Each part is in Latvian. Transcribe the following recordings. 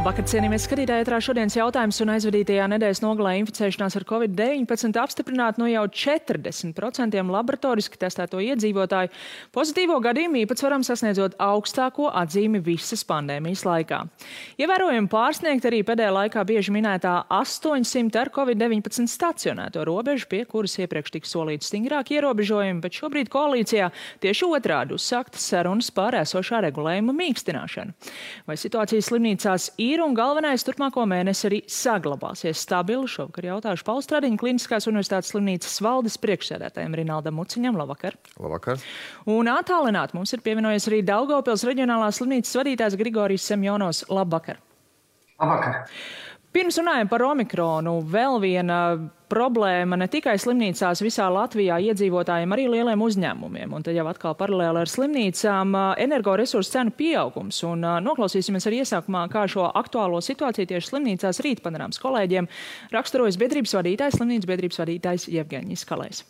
Labvakar, cienījamies skatītāji, ētrā šodienas jautājums un aizvadītajā nedēļas nogalē inficēšanās ar Covid-19 apstiprināta no jau 40% laboratoriski testēto iedzīvotāju pozitīvo gadījumu īpatsvaram sasniedzot augstāko atzīmi visas pandēmijas laikā. Ievērojami pārsniegt arī pēdējā laikā bieži minētā 800 ar Covid-19 stacionēto robežu, pie kuras iepriekš tika solīti stingrāki ierobežojumi, bet šobrīd koalīcijā tieši otrādi uzsāktas sarunas par esošā regulējuma mīkstināšanu. Vai situācija slimnīcās ir un galvenais turpmāko mēnesi arī saglabāsies stabili? Šovakar jautāšu Paula Stradiņa Kliniskās universitātes slimnīcas valdes priekšsēdētājiem Rinaldam Muciņam. Labvakar. Labvakar. Un attālināt mums ir pievienojies arī Daugavpils reģionālās slimnīcas vadītājs Grigorijs Semjonovs. Labvakar. Labvakar. Pirms runājam par Omikronu, vēl viena problēma ne tikai slimnīcās visā Latvijā iedzīvotājiem, arī lieliem uzņēmumiem. Un tad jau atkal paralēli ar slimnīcām energoresursu cenu pieaugums. Un noklausīsimies arī iesākumā, kā šo aktuālo situāciju tieši slimnīcās rīt panorāmas kolēģiem raksturojas slimnīcas biedrības vadītājs Jevgeņijs Kalējs.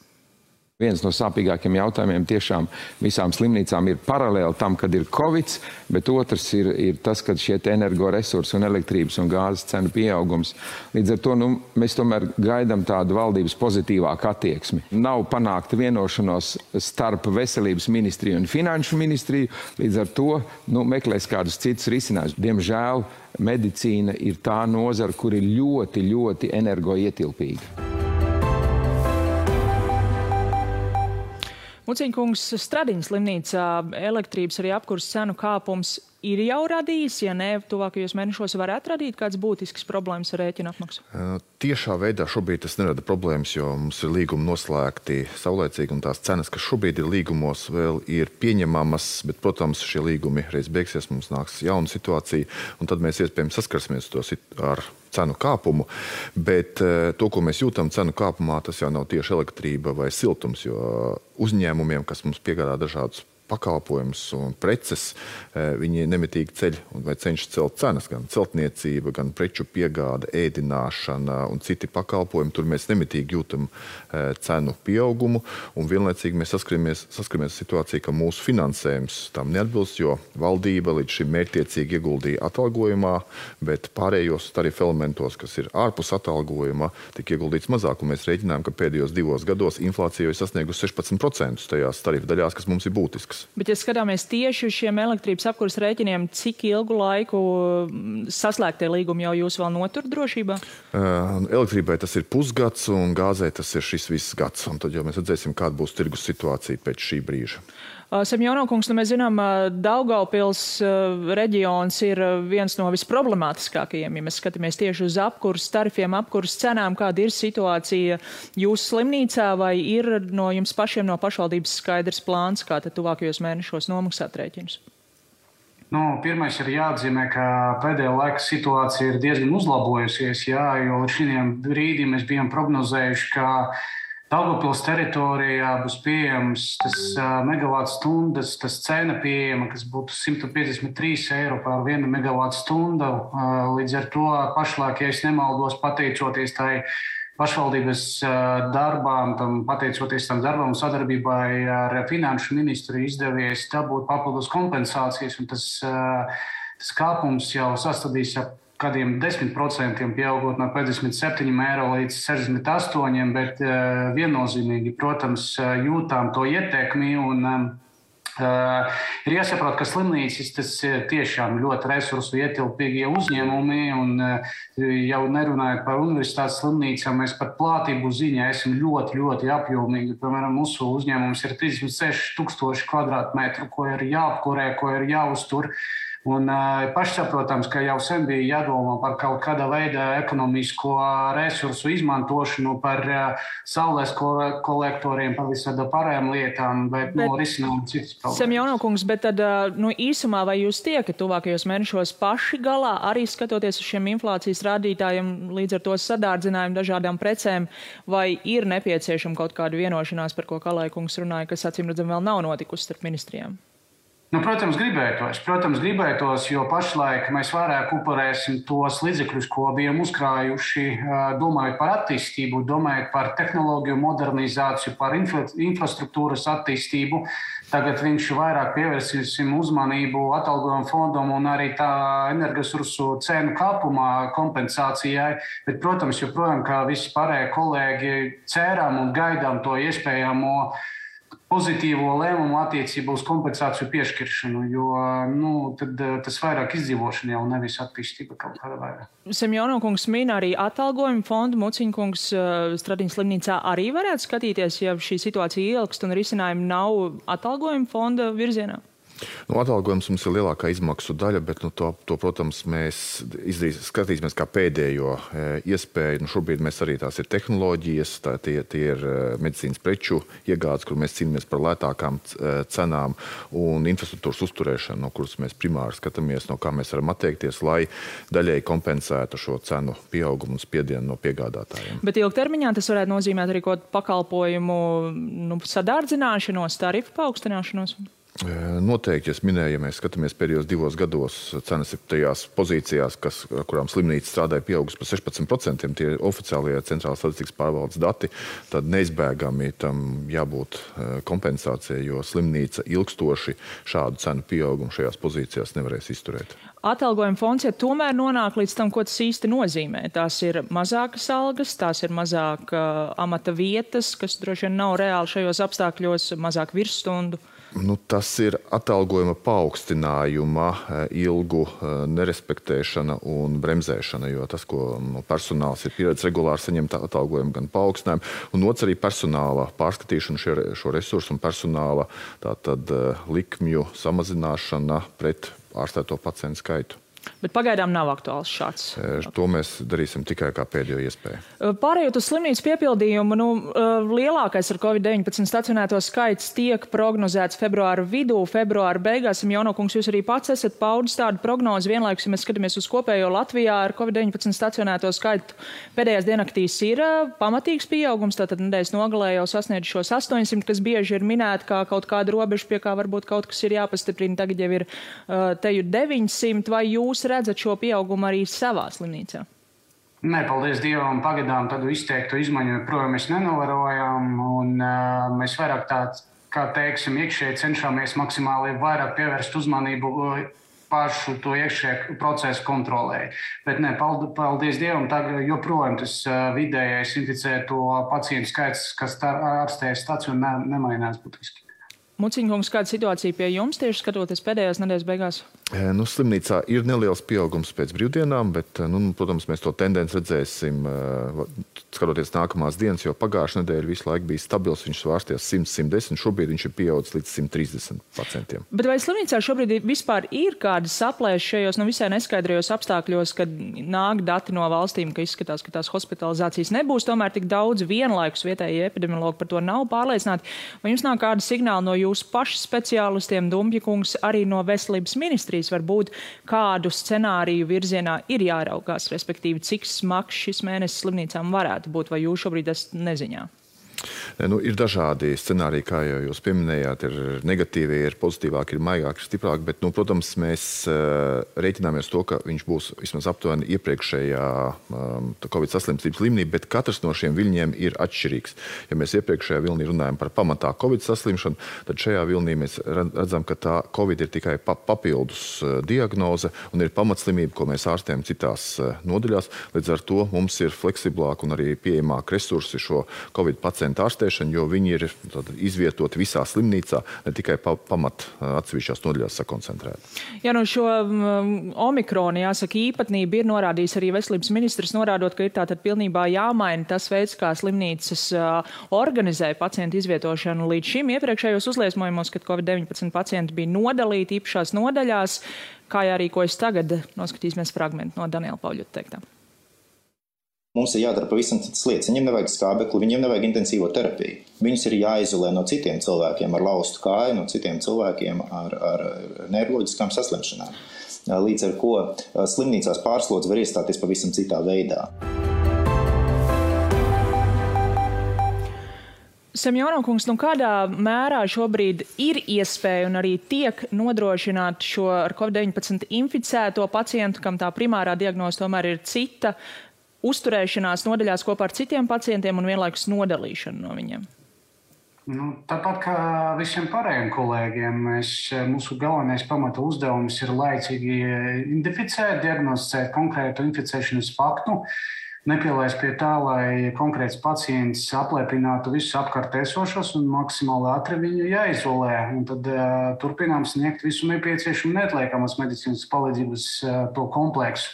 Viens no sāpīgākiem jautājumiem tiešām visām slimnīcām ir paralēli tam, kad ir Covid, bet otrs ir tas, kad šie energoresursi un elektrības un gāzes cenu pieaugums. Līdz ar to mēs tomēr gaidām tādu valdības pozitīvāku attieksmi. Nav panākta vienošanos starp veselības ministriju un finanšu ministriju, līdz ar to meklēs kādus citus risinājumus. Diemžēl medicīna ir tā nozara, kur ir ļoti, ļoti energoietilpīga. Muciņkungs, Stradiņa slimnīcā elektrības arī apkurses cenu kāpums ir jau radījis, ja ne, tuvākajos mēnešos varētu radīt kāds būtisks problēmas ar rēķinu apmaksu? Tiešā veidā šobrīd tas nerada problēmas, jo mums ir līgumi noslēgti saulēcīgi un tās cenas, kas šobrīd ir līgumos, vēl ir pieņemamas, bet, protams, šie līgumi reiz beigsies, mums nāks jauna situācija, un tad mēs iespējams saskarsimies ar cenu kāpumu, bet to, ko mēs jūtam cenu kāpumā, tas jau nav tieši elektrība vai siltums, jo uzņēmumiem, kas mums piegādā dažādus pakalpojumus un preces, viņi nemitīgi ceļ vai cenšas celt cenas, gan celtniecība, gan preču piegāde, ēdināšana un citi pakalpojumi. Tur mēs nemitīgi jūtam cenu pieaugumu, un vienlaicīgi mēs saskaramies situāciju, ka mūsu finansējums tam neatbilst, jo valdība līdz šim mērķtiecīgi ieguldīja atalgojumā, bet pārējos tarifu elementos, kas ir ārpus atalgojuma, tika ieguldīts mazāk, un mēs rēķinājām, ka pēdējos 2 gados inflācija ir sasniegusi 16% tajās tarifu daļās, kas mums ir būtiskas. Bet, ja skatāmies tieši uz šiem elektrības apkurses rēķiniem, cik ilgu laiku saslēgtie līgumi jau jūs vēl notur drošībā? Elektrībai tas ir pusgads, un gāzei tas ir šis viss gads. Un tad jau mēs redzēsim, kāda būs tirgus situācija pēc šī brīža. Semjonovkungs, mēs zinām, Daugavpils reģions ir viens no visproblemātiskākajiem, ja mēs skatāmies tieši uz apkurses tarifiem, apkurses cenām, kāda ir situācija jūsu slimnīcā, vai ir no jums pašiem no pašvaldības skaidrs plāns, kā tad tuvākajos mēnešos nomaksāt rēķinus? Pirmais ir jāatzīmē, ka pēdējā laika situācija ir diezgan uzlabojusies, jo līdz šim brīdim mēs bijām prognozējuši, ka Daugavpils teritorijā būs pieejams tas megavātstundas, tas cena pieejama, kas būtu 153 eiro par 1 megavātstundu. Līdz ar to pašlaik, ja es nemaldos, pateicoties tai pašvaldības darbām, pateicoties tam darbam sadarbībai ar finanšu ministru izdevies dabūt papildus kompensācijas, un tas kāpums jau sastādīs ap kādiem 10% pieaugot no 57 eiro līdz 68, bet viennozīmīgi, protams, jūtām to ietekmi un ir jāsaprot, ka slimnīcas tas tiešām ļoti resursu ietilpīgie uzņēmumi un jau nerunājot par universitātes slimnīcām, mēs par platību ziņā esam ļoti, ļoti apjomīgi. Piemēram, mūsu uzņēmums ir 36,000 kvadrātmetru, ko ir jāapkurē, ko ir jāuztur. Un pašsaprotams, ka jau sen bija jādomā par kaut kāda veida ekonomisko resursu izmantošanu, par saules kolektoriem, par visādām pārējām lietām, bet risinām citas problēmas. Semjonovkungs, bet tad īsumā vai jūs tiekat tuvākajos mēnešos paši galā, arī skatoties uz šiem inflācijas rādītājiem, līdz ar to sadārdzinājumu dažādām precēm, vai ir nepieciešama kaut kāda vienošanās, par ko Kalējkungs runāja, kas acīm redzam vēl nav notikusi starp ministrijām? Protams, gribētos, jo pašlaik mēs vairāk upurēsim tos līdzekļus, ko bijām uzkrājuši, domājot par attīstību, domājot par tehnoloģiju modernizāciju, par infrastruktūras attīstību. Tagad viņš vairāk pievērsīsim uzmanību atalgojumu fondam un arī tā energoresursu cenu kāpumā kompensācijai. Bet, protams, joprojām, kā visi pārējie kolēģi, cerām un gaidām to iespējamo pozitīvo lēmumu attiecībā uz kompensāciju piešķiršanu, jo tad tas vairāk izdzīvošana jau nevis attīstība kaut kāda vairāk. Semjono kungs min arī atalgojumu fondu. Muciņa kungs Stradiņas slimnīcā arī varētu skatīties, ja šī situācija ilgst un risinājumi nav atalgojumu fonda virzienā? Atalgojums mums ir lielākā izmaksu daļa, bet to, protams, mēs skatīsimies kā pēdējo iespēju. Šobrīd mēs arī tās ir tehnoloģijas, tie ir medicīnas preču iegādes, kur mēs cīnāmies par lētākām cenām un infrastruktūras uzturēšanu, no kuras mēs primāri skatāmies, no kā mēs varam atteikties, lai daļēji kompensētu šo cenu pieaugumu un spiedienu no piegādātājiem. Bet ilgtermiņā tas varētu nozīmēt arī kaut pakalpojumu sadārdzināšanos, tarifu paaugstināšanos? Noteikti, es minēju, ja mēs skatāmies pēdējos 2 gados, cenas ir tajās pozīcijās, kurām slimnīca strādāja pieaugusi par 16%, tie oficiālie centrālās statistikas pārvaldes dati, tad neizbēgami tam jābūt kompensācijai, jo slimnīca ilgstoši šādu cenu pieaugumu šajās pozīcijās nevarēs izturēt. Atalgojuma fonds, ja tomēr nonāk līdz tam, ko tas īsti nozīmē. Tās ir mazākas algas, tās ir mazāk amata vietas, kas droši vien nav reāli šajos apstākļos, mazāk virsstundu. Tas ir atalgojuma paaugstinājuma ilgu nerespektēšana un bremzēšana, jo tas, ko personāls ir pieredzējis regulāri saņemt atalgojumu gan paaugstinājumu, un otrs arī personāla pārskatīšana šo resursu un personāla tātad likmju samazināšana pret ārstēto pacientu skaitu. Bet pagaidām nav aktuāls šāds. To mēs darīsim tikai kā pēdējo iespēju. Pārējot uz slimnīcas piepildījumu, lielākais ar Covid-19 stacionēto skaits tiek prognozēts februāra vidū, februāra beigās. Semjono kungs, jūs arī pats esat paudis tādu prognozi. Vienlaikus, ja mēs skatāmies uz kopējo Latvijā ar Covid-19 stacionēto skaitu, pēdējās diennaktīs ir pamatīgs pieaugums, tātad nedēļas nogalē jau sasniedz šos 800, kas bieži ir minēti kā kaut kāda robeža, pie kā varbūt kaut kas ir jāpastiprina. Tagad jau ir teju 900, vai jūs redzat šo pieaugumu arī savā slimnīcā? Nē, paldies Dievam, pagaidām tādu izteiktu izmaiņu joprojām mēs nenovērojam, un mēs vairāk kā teiksim, iekšēji cenšamies maksimāli vairāk pievērst uzmanību pašu to iekšēju procesu kontrolē. Bet nē, paldies Dievam, tagad joprojām tas vidējais inficēto pacientu skaits, kas ārstējas stacionā, nemainās būtiski. Muciņa kungs, kāda situācija pie jums tieši skatoties pēdējās nedēļas beigās? Slimnīcā ir neliels pieaugums pēc brīvdienām, bet, protams, mēs to tendenci redzēsim, skatoties nākamās dienas, jo pagājušā nedēļa visu laiku bija stabils, viņš svārsties 100-110, šobrīd viņš ir pieaudzis līdz 130%. Bet vai slimnīcā šobrīd vispār ir kādas saplēses šajos visai neskaidrajos apstākļos, kad nāk dati no valstīm, ka izskatās, ka tās hospitalizācijas nebūs, tomēr tik daudz vienlaikus vietējie epidemiologi par to nav pārliecināti? Vai jums nāk kāda signāla no jūsu pašu speciālistiem, Dumpja kungs, arī no veselības ministrijas? Varbūt kādu scenāriju virzienā ir jāraugās, respektīvi, cik smags šis mēnesis slimnīcām varētu būt, vai jūs šobrīd esat neziņā? Ir dažādi scenāriji, kā jau jūs pieminējāt, ir negatīvi, ir pozitīvāki, ir maigāki, ir stiprāki, bet, protams, mēs rēķināmies to, ka viņš būs vismaz aptuveni iepriekšējā Covid saslimstības līmenī, bet katrs no šiem viļņiem ir atšķirīgs. Ja mēs iepriekšējā vilnī runājam par pamatā Covid saslimšanu, tad šajā vilnī mēs redzam, ka tā Covid ir tikai papildus diagnoze un ir pamatslimība, ko mēs ārstējam citās nodaļās. Līdz ar to mums ir fleksiblāk un arī pieejamāk resursi šo Covid pacientu ārstēšanu, jo viņi ir izvietoti visā slimnīcā, ne tikai pamat atsevišķās nodaļās sakoncentrēti. Jā, šo omikronu, jāsaka, īpatnība ir norādījis arī veselības ministrs, norādot, ka ir tātad pilnībā jāmaina tas veids, kā slimnīcas organizē pacientu izvietošanu. Līdz šim iepriekšējos uzliesmojumos, kad Covid-19 pacienti bija nodalīti īpašās nodaļās, kā jārīkojas tagad, noskatīsimies fragmentu no Daniela Pauļuta teiktā. Mums ir jādara pavisam citas lietas. Viņiem nevajag skābekli, viņiem nevajag intensīvo terapiju. Viņus ir jāizolē no citiem cilvēkiem ar laustu kāju, no citiem cilvēkiem ar neiroloģiskām saslimšanām. Līdz ar ko slimnīcās pārslodze var iestāties pavisam citā veidā. Semjonov kungs, kādā mērā šobrīd ir iespēja un arī tiek nodrošināt šo ar COVID-19 inficēto pacientu, kam tā primārā diagnoze tomēr ir cita, uzturēšanās nodaļās kopā ar citiem pacientiem un vienlaikus nodalīšanu no viņiem? Tāpat kā visiem pārējiem kolēģiem, mūsu galvenais pamata uzdevums ir laicīgi identificēt, diagnosticēt konkrētu inficēšanas faktu, nepielaist pie tā, lai konkrēts pacients apliecinātu visus apkārt esošos un maksimāli ātri viņu jāizolē. Un tad turpinām sniegt visu nepieciešamu neatliekamas medicīnas palīdzības to kompleksu.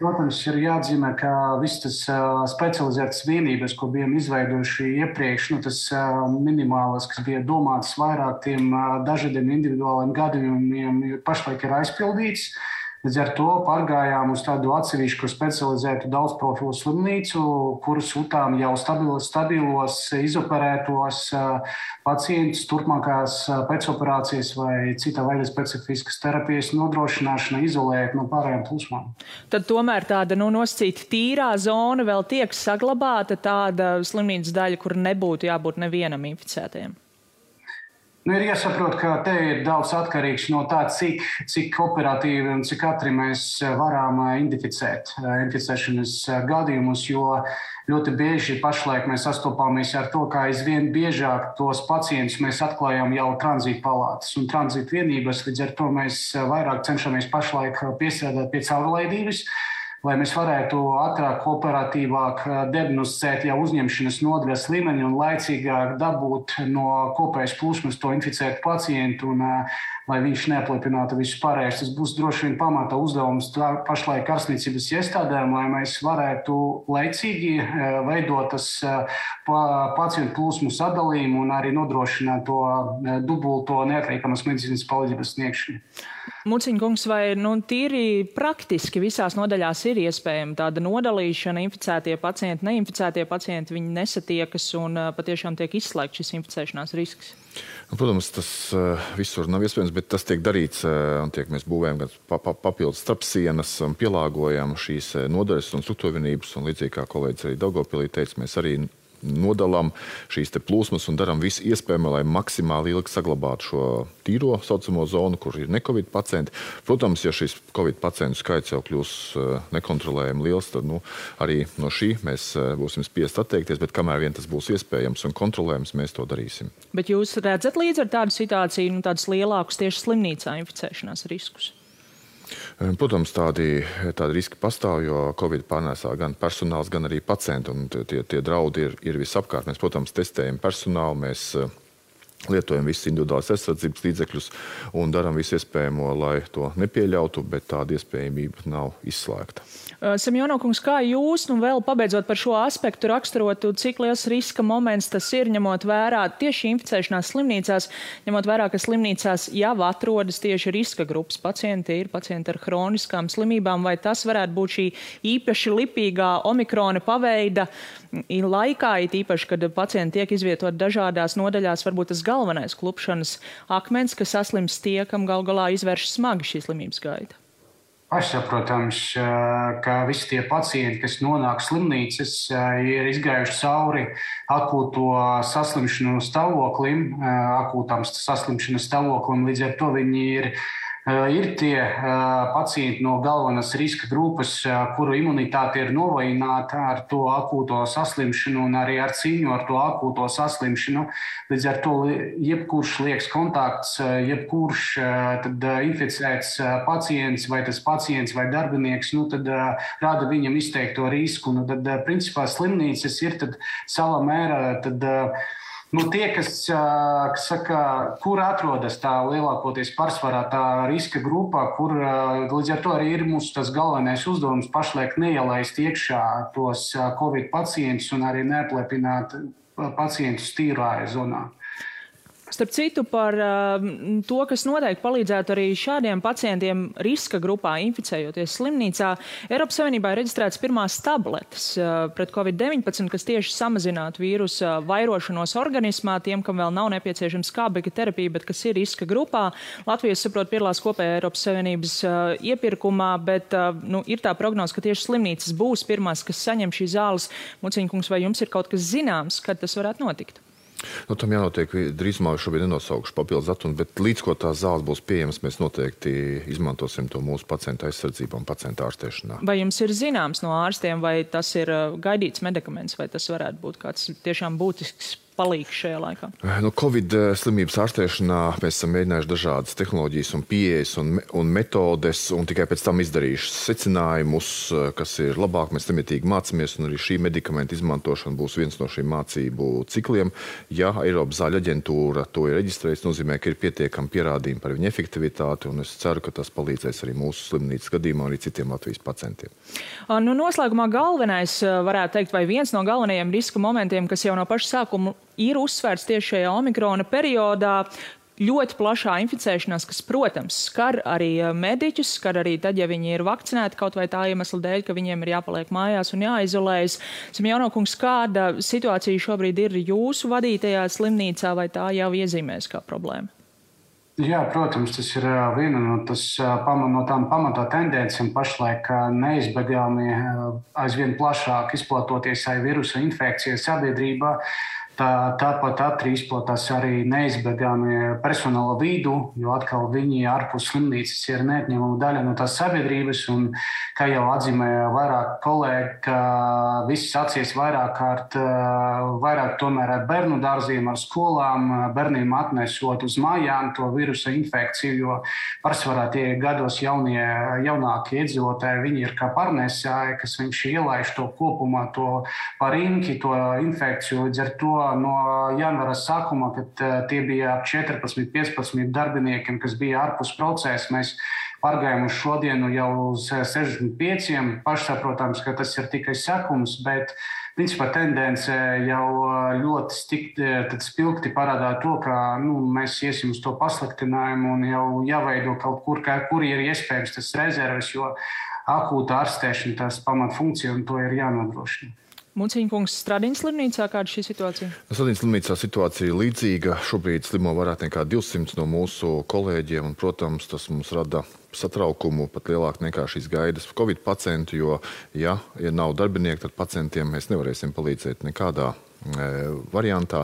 Protams, ir jāatzīmē, ka visas tas specializētas vienības, ko bijām izveidojuši iepriekš, tas minimālas, kas bija domāts vairāk tiem dažādiem individuāliem gadījumiem, pašlaik ir aizpildīts. Līdz ar to pārgājām uz tādu atsevišķu specializētu daudzprofilu slimnīcu, kuras sūtām jau stabilos, izoperētos pacientus turpmākās pēcoperācijas vai cita veida specifiskas terapijas nodrošināšana, izolēt no pārējām plūsmām. Tad tomēr tāda nosacīta tīrā zona vēl tiek saglabāta, tāda slimnīcas daļa, kur nebūtu jābūt nevienam inficētajam. Ir jāsaprot, ka te ir daudz atkarīgs no tā, cik operatīvi un cik ātri mēs varam identificēt inficēšanas gadījumus, jo ļoti bieži pašlaik mēs sastopāmies ar to, ka aizvien biežāk tos pacientus mēs atklājam jau tranzīta palātas un tranzīta vienības, līdz ar to mēs vairāk cenšamies pašlaik piestrādāt pie caurlaidības, lai mēs varētu ātrāk, operatīvāk diagnosticēt jau uzņemšanas nodaļas līmeni un laicīgāk dabūt no kopējas plūsmas to inficētu pacientu un lai viņš neapliecinātu visus pārējos. Tas būs droši vien pamata uzdevums pašlaik ārstniecības iestādēm, lai mēs varētu laicīgi veidot tas pacientu plūsmu sadalījumu un arī nodrošināt to dubulto neatliekamas medicīnas palīdzības sniegšanu. Muciņ kungs, vai tīri praktiski visās nodaļās ir iespējama tāda nodalīšana, inficētie pacienti, neinficētie pacienti, viņi nesatiekas un patiešām tiek izslēgts šis inficēšanās risks? Protams, tas visur nav iespējams, bet tas tiek darīts, un mēs būvējam gan papildus starpsienas un pielāgojam šīs nodaļas un struktūrvienības, un līdzīgi kā kolēģis arī Daugavpilī teica, mēs arī nodalām šīs te plūsmas un darām visu iespējamo, lai maksimāli ilgi saglabātu šo tīro saucamo zonu, kur ir ne-covid pacienti. Protams, ja šis covid pacientu skaits jau kļūs nekontrolējami liels, tad arī no šī mēs būsim spiest atteikties, bet kamēr vien tas būs iespējams un kontrolējams, mēs to darīsim. Bet jūs redzat līdz ar tādu situāciju, tādus lielākus tieši slimnīcā inficēšanās riskus? Protams, tādi riski pastāv, jo Covid pārnēsā gan personāls, gan arī pacienti, un tie draudi ir visapkārt. Mēs, protams, testējam personālu, mēs lietojam visus individuālās aizsardzības līdzekļus un darām visu iespējamo, lai to nepieļautu, bet tāda iespējamība nav izslēgta. Semjonov kungs, kā jūs, vēl pabeidzot par šo aspektu, raksturotu, cik liels riska moments tas ir, ņemot vērā tieši inficēšanās slimnīcās, ņemot vērā, ka slimnīcās jau atrodas tieši riska grupas pacienti, ir pacienti ar hroniskām slimībām, vai tas varētu būt šī īpaši lipīgā omikrona paveida laikā, it īpaši, kad pacienti tiek izvietot dažādās nodaļās, varbūt tas galvenais klupšanas akmens, ka saslims tie, kam gal galā izvērš smagi šī slimības gaita? Pašsaprotams, ka visi tie pacienti, kas nonāk slimnīcas, ir izgājuši cauri akūto saslimšanu stāvoklim, akūtām saslimšanas stāvoklim, līdz ar to viņi ir tie pacienti no galvenās riska grupas, kuru imunitāte ir novājināta ar to akūto saslimšanu un arī ar cīņu ar to akūto saslimšanu. Līdz ar to jebkurš liekas kontakts, jebkurš inficēts pacients vai tas pacients vai darbinieks, tad rada viņam izteikto risku. Tad, principā, slimnīcas ir savā mērā tie, kas saka, kur atrodas tā lielākoties pārsvarā tā riska grupā, kur līdz ar to arī ir mūsu tas galvenais uzdevums pašlaik neielaist iekšā tos Covid pacientus un arī neapliepināt pacientus tīrāja zonā. Starp citu, par to, kas noteikti palīdzētu arī šādiem pacientiem riska grupā inficējoties slimnīcā, Eiropas Savienībā ir reģistrētas pirmās tabletes pret COVID-19, kas tieši samazinātu vīrusa vairošanos organismā tiem, kam vēl nav nepieciešama skābekļa terapija, bet kas ir riska grupā. Latvija, saprot, piedalās kopējā Eiropas Savienības iepirkumā, bet ir tā prognoze, ka tieši slimnīcas būs pirmās, kas saņem šīs zāles. Muciņ kungs, vai jums ir kaut kas zināms, kad tas varētu notikt? Tam jānotiek drīzumā, šobrīd nenosaukšu papildus datumu, bet līdz ko tās zāles būs pieejamas, mēs noteikti izmantosim to mūsu pacienta aizsardzību un pacienta ārstēšanā. Vai jums ir zināms no ārstiem, vai tas ir gaidīts medikaments, vai tas varētu būt kāds tiešām būtisks palīgs šajā laikā? Covid slimības ārstēšanā mēs esam mēģinājuši dažādas tehnoloģijas un pieejas un metodes, un tikai pēc tam izdarījuši secinājumus, kas ir labāk. Mēs nemitīgi mācāmies, un arī šī medikamenta izmantošana būs viens no šīm mācību cikliem. Ja Eiropas zāļu aģentūra to ir reģistrējusi, nozīmē, ka ir pietiekami pierādījumi par viņa efektivitāti, un es ceru, ka tas palīdzēs arī mūsu slimnīcas gadījumā, arī citiem Latvijas pacientiem. Noslēgumā galvenais, varētu teikt, vai viens no galvenajiem riska momentiem, kas jau no paša sākuma ir uzsvērts tieši šajā omikrona periodā, ļoti plašā inficēšanās, kas, protams, skar arī mediķus, skar arī tad, ja viņi ir vakcinēti kaut vai tā iemesla dēļ, ka viņiem ir jāpaliek mājās un jāizolējas. Simjaunokungs, kāda situācija šobrīd ir jūsu vadītajā slimnīcā, vai tā jau iezīmēs kā problēma? Jā, protams, tas ir viena no tām pamatā tendencēm pašlaik neizbēgami aizvien plašāk izplatoties vīrusa infekcija sabiedrībā. Tāpat izplatās arī neizbēgami personāla vidū, jo atkal viņi ārpus slimnīcas ir neatņemama daļa no tās sabiedrības. Un, kā jau atzīmēja vairāk kolēģi, ka viss sācies vairāk tomēr ar bērnu dārziem, ar skolām, bērniem atnesot uz mājām to vīrusa infekciju, jo pārsvarā tie gados jaunākie iedzīvotāji, viņi ir kā pārnēsāji, kas viņš ielaiž to kopumā, to parinki, to infekciju. Līdz ar to no janvāra sākuma, kad tie bija 14-15 darbiniekiem, kas bija ārpus procesa, mēs pārgājām uz šodienu jau uz 65. Pašsaprotams, ka tas ir tikai sākums, bet principā tendence jau ļoti spilgti parādā to, ka mēs iesim uz to pasliktinājumu un jau jāveido kaut kur ir iespējams tas rezerves, jo akūta ārstēšana tās pamatfunkcija un to ir jānodrošina. Muciņkungs, Stradiņas slimnīcā, kāda šī situācija? Stradiņas slimnīcā situācija ir līdzīga. Šobrīd slimo vairāk nekā 200 no mūsu kolēģiem, un, protams, tas mums rada satraukumu pat lielāk nekā šīs gaidas Covid pacientu, jo, ja nav darbinieki, tad pacientiem mēs nevarēsim palīdzēt nekādā variantā.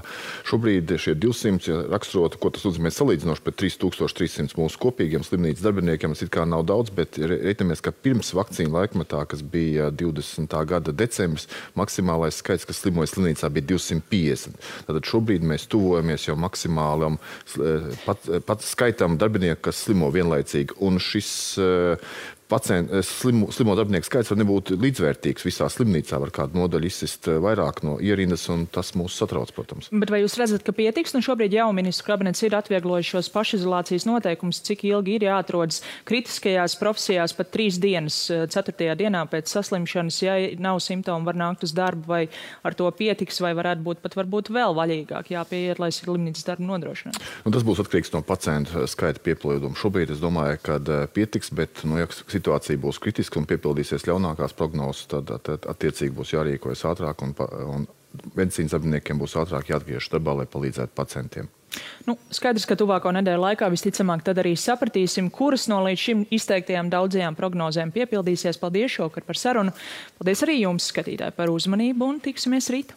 Šobrīd šie 200 raksturota, ko tas nozīmē salīdzinoši pret 3300 mūsu kopīgiem slimnīcas darbiniekiem, tas it kā nav daudz, bet reiķinamies, ka pirms vakcīnu laikmetā, kas bija 20. gada decembris, maksimālais skaits, kas slimoja slimnīcā, bija 250. Tātad šobrīd mēs tuvojamies jau maksimālam pat skaitam darbinieku, kas slimo vienlaicīgi, un šis slimo darbinieku skaits var nebūt līdzvērtīgs visā slimnīcā, var kādu nodaļu izsist vairāk no ierindas, un tas mūs satrauc, protams. Bet vai jūs redzat, ka pietiks? Šobrīd jau ministru kabinets ir atvieglojuši šos pašizolācijas noteikumus, cik ilgi ir jāatrodas kritiskajās profesijās pat 3 dienas, 4. dienā pēc saslimšanas, ja nav simptomu, var nākt uz darbu, vai ar to pietiks, vai varētu būt pat varbūt vēl vaļīgāk jāpieiet, lai slimnīcas darbu nodrošinātu? Tas būs atkarīgs no pacientu skaita piepildījuma. Šobrīd es domāju, ka pietiks, bet ja situācija būs kritiska un piepildīsies ļaunākās prognozes, tad attiecīgi būs jārīkojas ātrāk un medicīnas darbiniekiem būs ātrāk jāatgriežas darbā, lai palīdzētu pacientiem. Skaidrs, ka tuvāko nedēļu laikā visticamāk tad arī sapratīsim, kuras no līdz šim izteiktajām daudzajām prognozēm piepildīsies. Paldies šovakar par sarunu. Paldies arī jums, skatītāji, par uzmanību un tiksimies rīt.